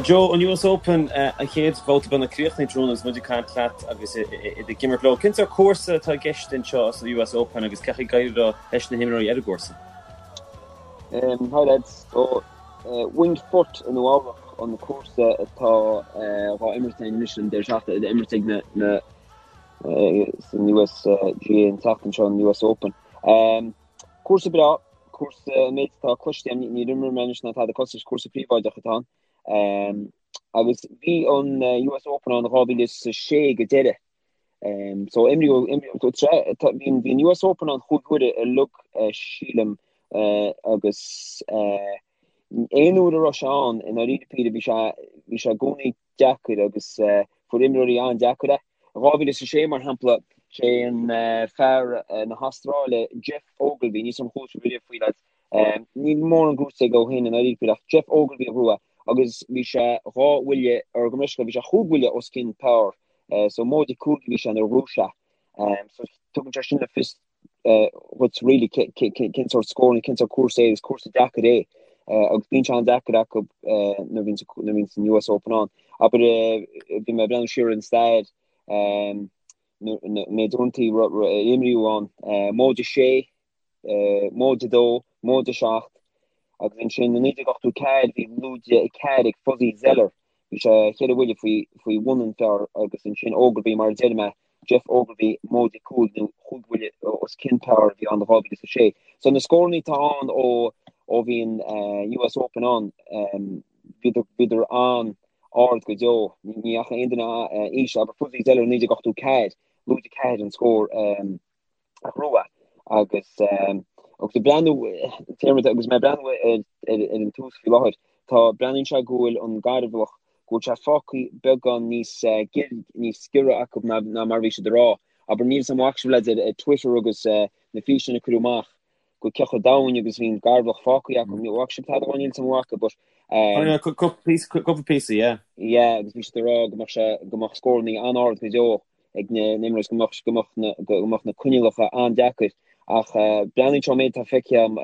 Joe, an US Open, an chéad bhabhta beagnach críochnaithe tráthnóna agus muid ag caint leat agus iad ag imirt leo. Cén sórt cúrsa atá i gceist anseo sa US Open agus cén chaoi ag éirí leis na himreoirí ar an gcúrsa? Hi lads, so Winged Foot i Nua Eabhrac an cúrsa atá dhá imirt againn anois an deireadh seachtaine, á imirt ag na na san USGA an tseachtain seo an US Open. Cúrsa breá, cúrsa an méid atá cloiste agam, níor imir mé anois ná tada cosúil, cúrsa príobháideach atá ann. Agus bhí an US Open ann 2006 go deireadh. So imríodh, bhí an US Open ann chúig huaire uilig sílim agus aon uair a raibh sé ann i ndáiríre píre bhí sé bhí sé i gcónaí deacair agus fuair imreoirí an-deacair é. I 2006 mar shampla sé an fear na hAstráile Geoff Ogilvy, níl 's a'm ar chuala sibh riamh faoi lads, níl mórán gnóite aige ó shin i ndáiríre píre ach Geoff Ogilvy a ghnóthaigh agus bhí sé dhá bhuille or gabh mo leithscéal bhí sé chúig bhuille os cionn par so móide cúig a bhí sé nuair a ghnóthaigh sé. So tugann sé sin le fios dhuit really cén sórt scór nó cén sórt cúrsa é agus cúrsa deacair é agus bíonn sé an-deacair acu nuair a bhíonn an US Open ann. Abair bhí mé ag breathnú siar ar an stair méid uaireanta a imríodh ann móide sé móide 2, móide 7, agus ansin i 1984 bhí lúide 4 ag Fuzzy Zoeller, bhí sé cheithre bhuille faoi bhun an phar agus ansin Ogilvy mar a deir mé, Geoff Ogilvy móide 5 nó chúig bhuille os cionn par a bhí ann i 2006. So na scóranna atá ann ó ó bhí an US Open ann, bhíodar bhíodar an-ard go deo, ní fhaca aon duine íseal, abair Fuzzy Zoeller i 1984, lúide 4 an scór. a ghnóthaigh agus agus ag breathnú téarma agus mé ag breathnú ar ar an tús faoi láthair tá breathnaíonn sé go bhfuil an garbhlach go bhfuil sé fágtha beagán níos níos giorra acu ná ná mar a bhí siad ag rá. Abair níl 's a'm an bhfaca sibh lads ar Twitter agus na físeáin a cuireadh amach go cé chomh domhain agus bhí an garbhlach fágtha acu. Ní bhfaca sibh tada níl 's a'm an bhfaca but Cúpla píosa, yeah. Yeah, agus bhí siad ag rá go mbeadh sé go mbeadh scóranna an-ard go deo ag na n-imreoirí go mbeadh go mbeadh na go mbeadh na coinníollacha an-deacair ach breathnaíonn sé ón méid atá feicthe agam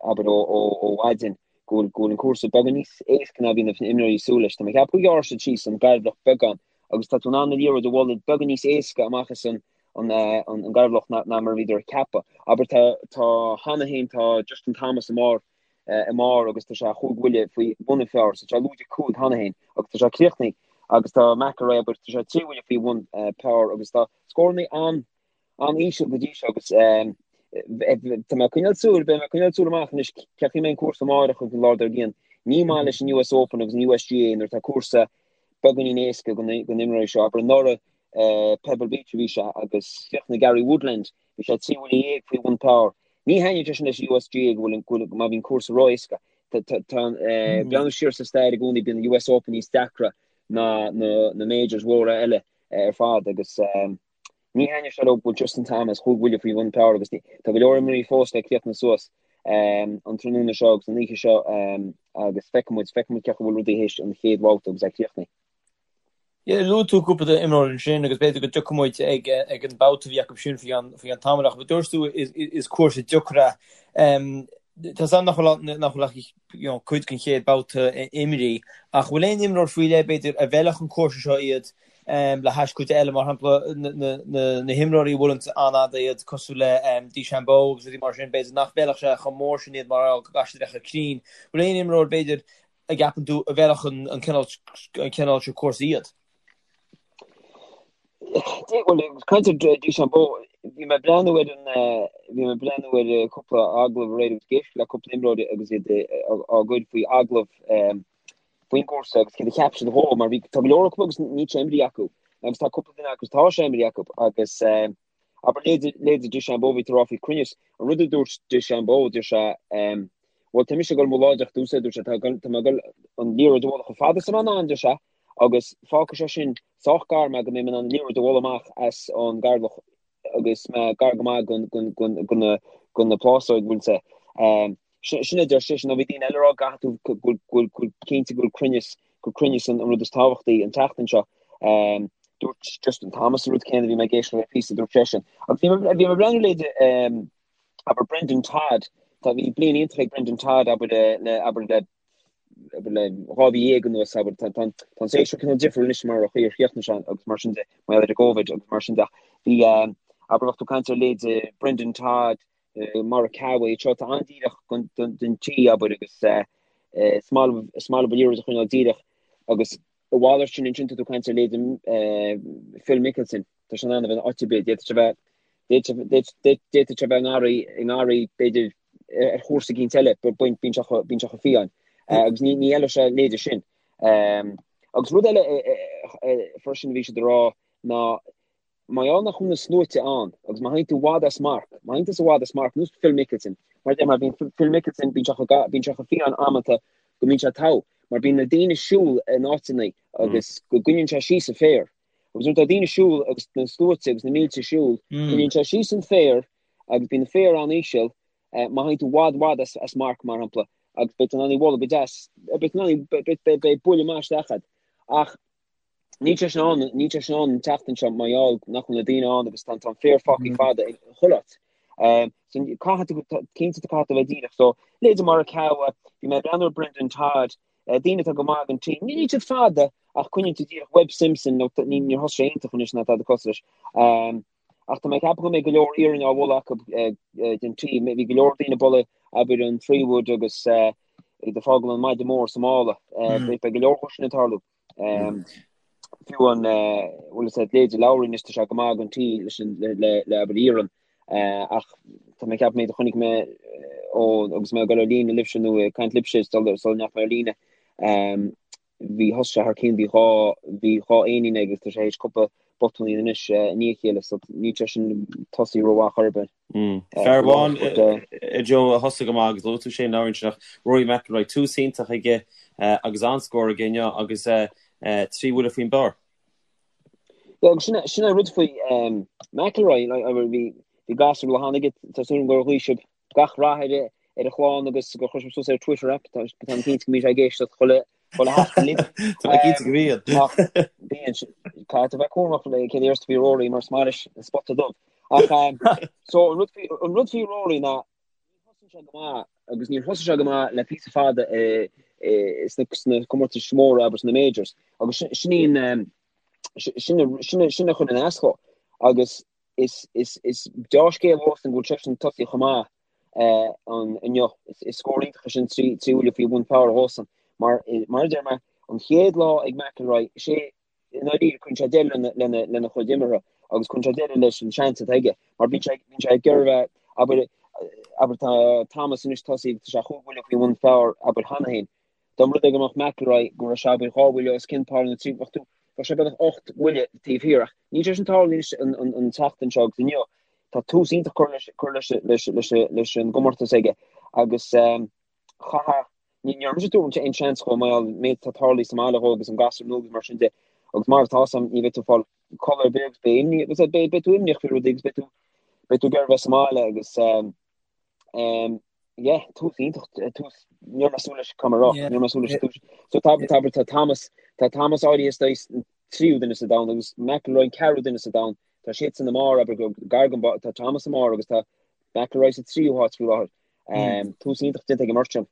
abair ó ó ó mhaidin go bhfuil go bhfuil an cúrsa beagán níos éasca ná bhí na imreoirí ag súil leis. Tá mé ag ceapadh gur ghearr siad síos an garbhlach beagán agus tá tú in ann an liathróid a bhualadh beagán níos éasca amach as an an an garbhlach ná ná mar a bhíodar ag ceapadh. Abair tá tá cheana féin tá Justin Thomas i mbarr i mbarr agus tá sé chúig bhuille faoi bhun an phar, so tá sé lúide 5 cheana féin agus tá sé críochnaithe agus tá McIlroy abair tá sé trí bhuille faoi bhun par agus tá scóranna an an-íseal go dtí seo agus tá mé ag coinneáil súil, beidh mé ag coinneáil súil amach anois cén chaoi a mbeidh an cúrsa amárach agus an lá dár gcionn. Ní maith leis an US Open agus an USGA nuair atá cúrsa beagáinín éasca do na imreoirí seo. Abair anuraidh Pebble Beach a bhí sé agus chríochnaigh Gary Woodland Bhí sé 13 bhuille faoi bhun par. Ní thaitníonn sé sin leis an USGA go bhfuil go bhfuil má bhíonn cúrsa ró-éasca. Tá tá breathnú siar sa stair i gcónaí bíonn an US Open níos deacra ná na na majors mhóra eile ar fad agus ní thaitníonn sé leo go bhfuil Justin Thomas chúig bhuille faoi bhun par agus tá go leor imreoirí fós le críochnú suas an tráthnóna seo agus an oíche seo agus feicfidh muid feicfidh muid cén chaoi a bhfuil rudaí théis an chéad bhabhta agus é críochnaithe. Yeah, luaigh tú cúpla d'imreoir ansin agus b'fhéidir go dtiocfaidh muid ag ag an babhta a bhí acu sin faoi cheann faoi cheann tamaill ach dúirt tú is is cúrsa deacair é. Tá 's agam nach bhfuil nach bhfuil ach you know cuid den chéad babhta imrithe ach bhfuil aon imreoir faoi leith b'fhéidir a bhfeilfeadh an cúrsa seo iad le hais cuid eile mar shampla na na na na himreoirí a bhuaileann an-fhada iad cosúil le DeChambeau agus rudaí mar sin b'fhéidir nach bhfeilfeadh sé chomh mór sin iad mar go gcaithfidh siad a bheith chomh cruinn. Bhfuil aon imreoir b'fhéidir a gceapann tú a bhfeilfeadh an cineál seo cúrsa iad? Bhuel, caint ar DeChambeau, bhí mé ag breathnú ar an, bhí mé ag breathnú ar cúpla agallamh aréir agus ag éisteacht le cúpla imreoir agus iad á gcur faoi agallamh faoin gcúrsa agus céard a cheap siad dhó mar bhí, tá go leor acu agus níl sé imrithe acu agus tá cúpla duine acu tá sé imrithe acu agus Abair, leithéidí DeChambeau, bhí tú ag rá faoi cruinneas. An rud a dúirt DeChambeau, dúirt sé, Bhuel, tá mise ag dul amuigh láidir ar dtús, a dúirt sé, tá mé ag dul an liathróid a bhualadh chomh fada is atá mé in ann, deir sé, agus fágfaidh sé sin sách gar mé go mbeidh mé in ann an liathróid a bhualadh amach as an garbhlach agus mé gar go maith go na plásóig, bhfuil sé. Sin a deir seisean, nó bhí daoine eile ag rá go gcaithfidh tú, go bhfuil, go cinnte go bhfuil cruinneas, gur cruinneas an rud is tábhachtaí an tseachtain seo. Dúirt Justin Thomas an rud céanna, bhí mé ag éisteacht le píosa, dúirt seisean. Agus bhí mé, bhí mé ag breathnú leithéidí, abair Brendon Todd, tá, bhí bliain iontach ag Brendon Todd, abair le, abair le. abair le 2 mhí anuas, abair, tá an séasúr cineál difriúil anois mar an chaoi ar chríochnaigh sé agus mar sin de, mar gheall ar an gCovid agus mar sin de. Ach bhí, abair, bheadh tú ag caint ar leithéid Brendon Todd, Morikawa, iad seo atá an-díreach don tee, abair, agus is maith leo, is maith leo an liathróid a choinneáil díreach agus a mhalairt sin ansin tá tú ag caint ar leithéid Phil Mickelson, tá sé in ann a bheith in áit ar bith, d'fhéadfadh sé a bheith, d'fhéadfadh sé a bheith i ngarraí, i ngarraí b'fhéidir ar chúrsa eicínt eile, bíonn sé bíonn sé chomh fiáin. Agus ní ní fheilfeadh sé a leithéide sin. Agus rud eile freisin a bhí siad ag rá ná Mar gheall nach bhfuil na sluaite ann, agus má théann tú i bhfad as marc, má théann tusa i bhfad as marc, nós Phil Mickelson, mar a deir mé, bíonn Phil Mickelson, bíonn sé chomh, bíonn sé chomh fiáin amanta go mbíonn sé togha, mar bíonn na daoine ag siúl in áiteanna agus go gcoinníonn sé síos an féar. Agus nuair atá daoine ag siúl agus na sluaite agus na mílte ag siúl, coinníonn sé síos an féar agus bíonn an féar an-íseal, má théann tú i bhfad, bhfad as, as marc, mar shampla, agus beidh tú in ann í a bhualadh go deas, beidh tú in ann í, beidh, beidh, beidh buille maith isteach agat. Ach Níl sé sin ann, níl sé sin ann an tseachtain seo mar gheall nach bhfuil na daoine ann agus tá an féar fágtha fada i chuile áit. So caithfidh tú, cinnte tá caithfidh tú a bheith díreach. So leithéidí Morikawa, bhí mé ag breathnú ar Brendon Todd, daoine atá go maith ag an tee. Níl siad fada ach coinníonn siad díreach Webb Simpson, nó ní níor thosaigh sé iontach anois ná tada cosúil leis. Ach tá mé ag ceapadh go mbeidh go leor iarainn á bhualadh acu den tee. Bhí go leor daoine ag bualadh abair an 3 wood agus iad ag fágáil an maide mór sa mála. Beidh go leor dhó sin ag tarlú. Fiú an bhfuil fhios agat leithéidí Lowry anois tá sé go maith ag an tee leis an le le abair iarann ach tá mé ag ceapadh méid a chonaic mé ó agus mé ag dul ar líne libhse nó ag caint libhse sula sula ndeachaigh mé ar líne bhí thosaigh sé thar cionn bhí bhí dhá éinín aige agus tá sé théis cúpla botúinín anois i ndiaidh a chéile so níl sé sin tosaí rómhaith chor ar bith. Fear amháin a Joe a thosaigh go maith agus luaigh tú Shane Lowry ansin ach Rory McIlroy tús iontach aige agus an-scór aige inniu agus 3 bhuille faoin bpar. Yeah, agus sin sin an rud faoi McIlroy bhí bhí gasúr cheana aige tá súil agam gur ghuigh sibh gach rath ar ar a chlann agus gur chuir sibh suas ar Twitter app tá táim cinnte go mbíonn sé ag éisteacht chuile chuile sheachtain libh. Tá mé cinnte go mbíonn. Ach bíonn caithfidh tú bheith cúramach le céard a déarfas tú faoi Rory mar is maith leis an spota dubh. Ach so an rud faoi an rud faoi Rory ná ní thosaíonn sé go maith agus níor thosaigh sé go maith le píosa fada sna sna comórtais mhóra abair sna majors agus sin í an sin sin sin a chuireann as dó agus is is is deá-scéal dhósan go bhfuil seisean tosaithe chomh maith an inniu. Is scór iontach é sin 3 bhuille faoi bhun par dhósan. Mar mar a deir mé, an chéad lá ag McIlroy, is é i ndáiríre cuireann sé deireadh lena lena lena chuid imeartha agus cuireann sé deireadh leis an seans atá aige. Mar bíonn sé bíonn sé ag iarraidh a bheith abair abair tá Thomas anois tosaithe tá sé chúig bhuille faoi bhun par abair cheana féin. Dá mba rud é go mbeadh McIlroy go raibh sé abair dhá bhuille os cionn par nó trí bheadh tú bheadh sé beagnach 8 mbuille taobh thiar ach níl sé sin tarlú anois an an an tseachtain seo agus inniu tá tús iontach curtha leis curtha leis leis leis leis an gcomórtas aige agus ehm chaithfeadh ní ní raibh mise ag tabhairt aon seans dhó mar an méid atá tarlaithe sa mbaile dhó agus an gasúr nua agus mar sin de agus mar atá sam ní bheidh tú ag fáil codladh ar bith agus beidh imní agus beidh beidh tú imníoch faoi rudaí agus beidh tú beidh tú ag iarraidh bheith sa mbaile agus ehm ehm Yeah, tús iontach, tús, ní raibh mé ag súil leis caithfidh mé a rá, ní raibh mé ag súil leis an tús. So tá, tá, tá Thomas, tá Thomas áirithe is dóigh an tríú duine sa domhan agus McIlroy an ceathrú duine sa domhan. Tá siadsan i mbarr, abair go gar don bharr, tá Thomas i mbarr agus tá McIlroy sa tríú háit faoi láthair. Tús iontach déanta ag an mbeirt sin.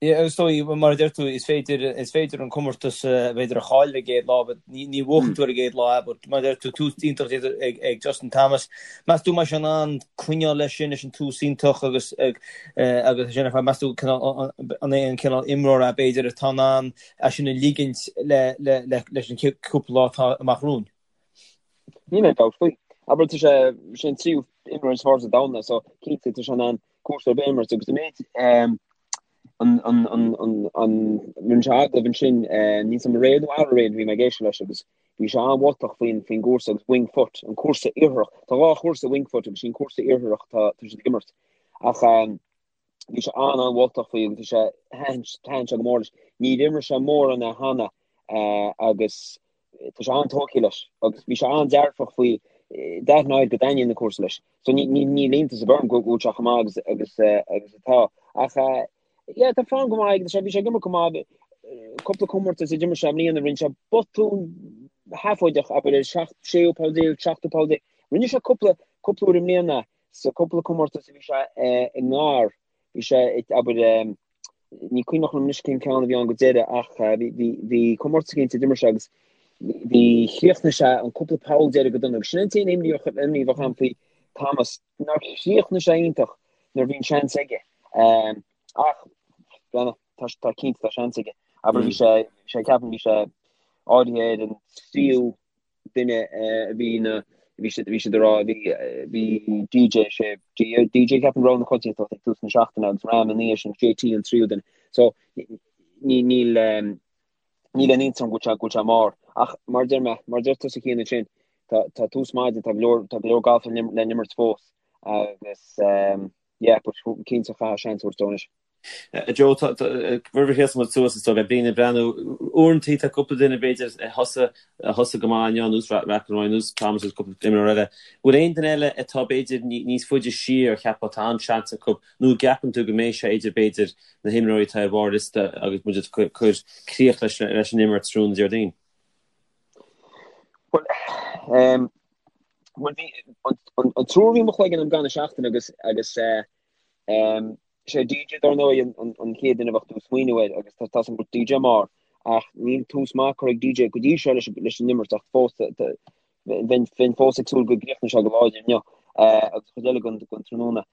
Yeah, agus is dóigh, mar a deir tú, is féidir, is féidir an comórtas, b'fhéidir a chailleadh ar an gcéad lá, but ní, ní bhuachann tú ar an gcéad lá, but mar a deir tú, tús iontach déanta ag, ag Justin Thomas. Meas tú an mbeidh sé in ann coinneáil leis sin, leis an tús iontach agus agus sin ar fad, meas tú an é an cineál imreoir é b'fhéidir atá in ann é sin a ligint le le le leis an cúpla lá atá amach romhainn? Níl aon dabht faoi. Abair tá sé sé an tríú imreoir is fearr sa domhan é so cinnte tá sé in ann cúrsa ar bith a imirt agus an méid an an an an an rinne sé agallamh ansin níl 's agam aréir nó aréir bhí mé ag éisteacht leis agus Bhí sé an-mholtach faoin faoin gcúrsa agus Winged Foot, an cúrsa iartharach. Tá dhá chúrsa Winged Foot agus sin cúrsa iartharach tá tá siad ag imirt. Ach bhí sé an-an-mholtach faoi agus bhí sé thaitin thaitin sé go mór leis. Níor imir sé mórán é cheana agus tá sé an-tógtha leis agus bhí sé an-dearfach faoi d'aithneodh go dtaitníonn an cúrsa leis. So ní ní níl iontas ar bith orm go bhfuil sé chomh maith agus agus agus atá. Ach Yeah, tá form go maith aige, bhí sé ag imirt go maith, cúpla comórtas a d'imir sé i mbliana, rinne sé botún sheafóideach, abair ar seacht, séú poll déag, seachtú poll déag. Rinne sé cúpla, cúpla uair i mbliana sa cúpla comórtas a bhí sé i ngar, bhí sé, abair. Ní cuimhneach liom anois cén ceann a bhí ann go deireadh ach bhí comórtas cinnte a d'imir sé agus bhí chríochnaigh sé an cúpla poll deiridh go dona agus sin an t-aon imní a bheadh agam faoi Thomas nár chríochnaigh sé iontach nuair a bhí an seans aige. Ach tá tá cinnte tá seans aige. Abair bhí sé sé ceapaim bhí sé áirithe ar an tríú duine a bhí na bhí siad bhí siad ag rá bhí bhí DJ sé DJ ceapaim rogha na coitianta ag tús na seachtaine agus Rahm ina dhiaidh sin JT an tríú duine. So ní níl níl aon iontas orm go bhfuil sé go bhfuil sé i mbarr ach mar deir mé mar deir tusa Cian ansin tá tá tús maidin tá go leor tá go leor galf le le n-imirt fós agus yeah but cinnte chaithfeá seans a thabhairt dó anois. Joe, roimh a sheasann muid suas is dóigh le daoine ag breathnú, uaireantaí tá cúpla duine b'fhéidir a thosaigh a thosaigh go maith inniu, ar nós McIlroy, ar nós Thomas agus cúpla imreoir eile. Bhfuil aon duine eile atá b'fhéidir níos faide siar a cheapfá tá an-seans acu nó an gceapann tú go mbeidh sé idir b'fhéidir na himreoirí atá ar bharr liosta agus muid ag cur críoch leis leis an imirt tráthnóna Déardaoin? Bhuel, bhuel bhí an triúr a bhí i mo chloigeann agam gan seachtain agus agus Sé DJ dar ndóigh an chéad duine a bheadh tú ag smaoineamh air agus tá tá's agam go bhfuil DJ i mbarr ach níl tús maith curtha ag DJ go dtí seo leis an imirt ach fós bheinn bheinn fós ag súil go gcríochnóidh sé go láidir inniu agus an chuid eile den den tráthnóna.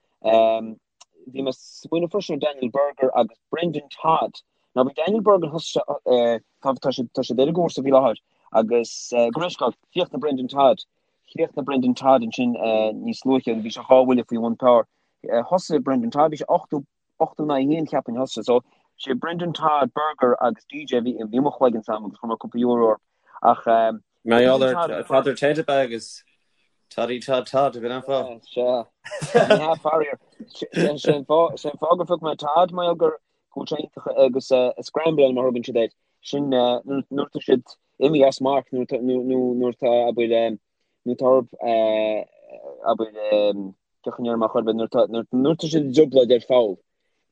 Bhí mé ag smaoineamh freisin ar Daniel Berger agus Brendon Todd. Now bhí Daniel Berger thosaigh sé tá tá siad tá siad ar an gcúrsa faoi láthair agus go raibh sé chríochnaigh Brendon Todd chríochnaigh Brendon Todd ansin níos luaithe agus bhí sé dhá bhuille faoi bhun par. Thosaigh Brendon Todd, bhí sé 80, 81 cheapfainn thosaigh sé. So, sé Brendon Todd, Berger agus DJ a bhí i mo chloigeann s'agam agus chuir mé cúpla euro orthu. Ach Mar gheall ar Father Ted ab ea agus Toddy Todd Todd a bhí an fáth. Sea. Ní hea faraor. Sé an fáth gur phioc mé Todd mar gheall gur go bhfuil sé iontach agus scrambling mar a thugann siad air. Sin nuair atá siad imithe as marc nuair atá abair nuair atá orthu abair Cén chaoi a ndéarfaidh mé chor ar bith, nuair atá siad i dtrioblóid ar pholl,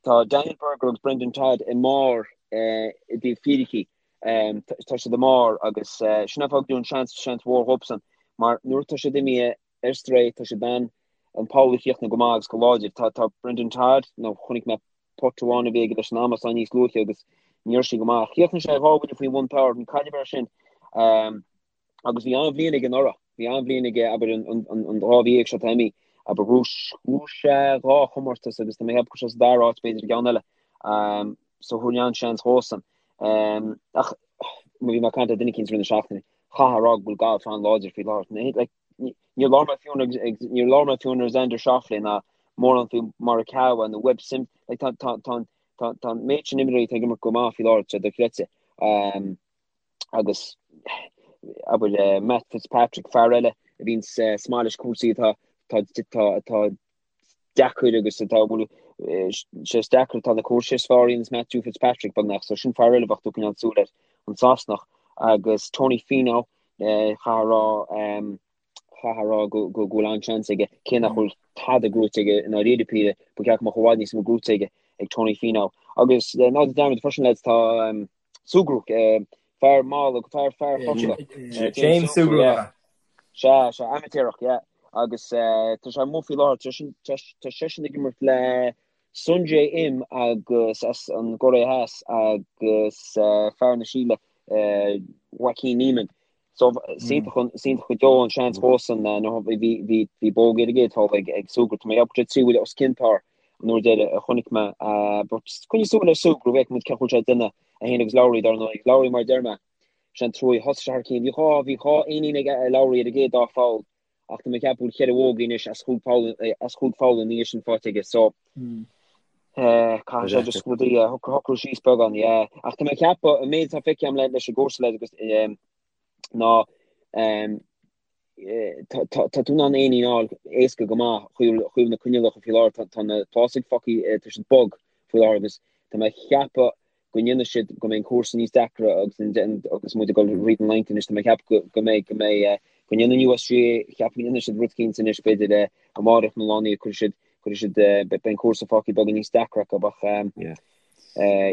tá Daniel Berger agus Brendon Todd i mbarr i dtaobh fíricí. Tá siad i mbarr agus sin an fáth go dtabharfainn seans, seans mhór dhóibhsean mar nuair atá siad imithe ar strae, tá siad in ann an poll a chríochnú go maith agus go láidir. Tá, tá Brendon Todd, nó chonaic mé putt amháin a bhí aige leis an amasán níos luaithe agus ní raibh sé go maith. Chríochnaigh sé dhá bhuille faoi bhun par, ní cailleadh air sin. Agus bhí an-bhliain aige anuraidh. Bhí an-bhliain aige, abair, an dá mhí dhéag seo atá imithe. Abair, ghnóthaigh sé dhá chomórtas agus tá mé ag ceapadh go raibh sé sa dara háit, b'fhéidir, i gceann eile. So thabharfainn an-seans dhósan. Ach má bhí mé ag caint le duine eicínt i rith na seachtaine, chaithfeá a rá go bhfuil galf an-láidir faoi láthair. Like, níor labhair mé fiú níor labhair mé fiú ar Xander Schauffele ná mórán faoi Morikawa nó Webb Simpson. Like, tá, tá, tá, tá, tá an méid sin imreoirí atá ag imirt go maith faoi láthair, tá sé dochreidte. Agus abair Matt Fitzpatrick, fear eile a bhíonn maith leis cúrsaí atá atá deacair agus atá bhfuil sé is deacair atá na cúrsaí is fearr a dhéanas Matthew Fitzpatrick beagnach so sin fear eile a bheadh tú ag coinneáil súil air, an Sasanach agus Tony Finau chaithfeá a rá chaithfeá a rá go bhfuil an-seans aige, cé nach bhfuil tada gnóite aige i ndáiríre píre, ba cheart go mbeadh i bhfad níos mó gnóite aige ag Tony Finau. Agus ná déan dearmad freisin lads tá Sugrue, fear mall, fear fear Chorcaí. James Sugrue. Sea, sea, amaitéarach, yeah. Agus tá sé amuigh faoi láthair, tá seisean ag imirt le Sungjae Im agus as an gCóiré Theas agus fear na Síle, Joaquin Niemann. So is iontach go deo an seans dhósan bhí bhí bhí bogey ar an gcéad pholl ag ag Sugrue. Tá mé ag ceapadh trí bhuille os cionn par an uair deiridh a chonaic mé. But coinnigh súil ar Sugrue, feicfidh muid cén chaoi a bhfuil sé ag déanamh é féin agus Lowry dar ndóigh. Lowry mar a deir mé, sé an trua thosaigh sé thar cinn. Bhí dhá bhí dhá éinín ag Lowry ar an gcéad dá pholl ach tá mé ag ceapadh go bhfuil cheithre bhogey anois as chúig pholl as chúig pholl ina dhiaidh sin faighte aige. So caithfidh sé just rudaí a shocrú síos beagán, yeah. Ach tá mé ag ceapadh an méid atá feicthe agam leis an gcúrsa leis agus ná tá tú in ann éinín a fháil éasca go maith chuig na coinníollacha faoi láthair. Tá na fásaigh fágtha, tá siad bog faoi láthair agus tá mé ag ceapadh go ndéanfaidh siad, go mbeidh an cúrsa níos deacra agus agus muid ag dul thríd an Lent anois, tá mé ag ceapadh go mbeidh, go mbeidh, go ndéanfaidh an USGA, ceapaim go ndéanfaidh siad rud eicínt anois b'fhéidir amárach nó lá inniu, cuirfidh siad, cuirfidh siad, beidh an cúrsa fágtha beagán níos deacra acu ach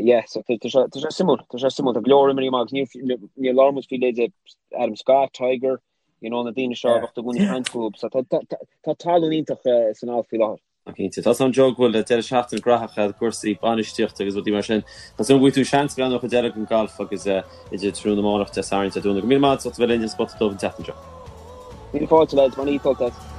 yeah, so tá sé, tá sé suimiúil, tá sé suimiúil, tá go leor imreoirí maith agus níor, níor labhair muid faoi leithéidí Adam Scott, Tiger, you know, na daoine seo a bheadh i gcónaí ag caint fúthu, so tá, tá, tá tallann iontach san alt faoi láthair. Cinnte. Tá a fhios agam Joe go bhfuil deireadh seachtaine graitheach agat i gcúrsaí bainistíochta agus rudaí mar sin. Tá súil agam go bhfaighidh tú seans breathnú ar chuid eile den galf agus idir tráthnóna amárach, Dé Sathairn, Dé Domhnaigh. Go raibh míle maith agat as ucht a bheith linn ar An Spota Dubh an tseachtain seo. Míle fáilte lads, mar ní as.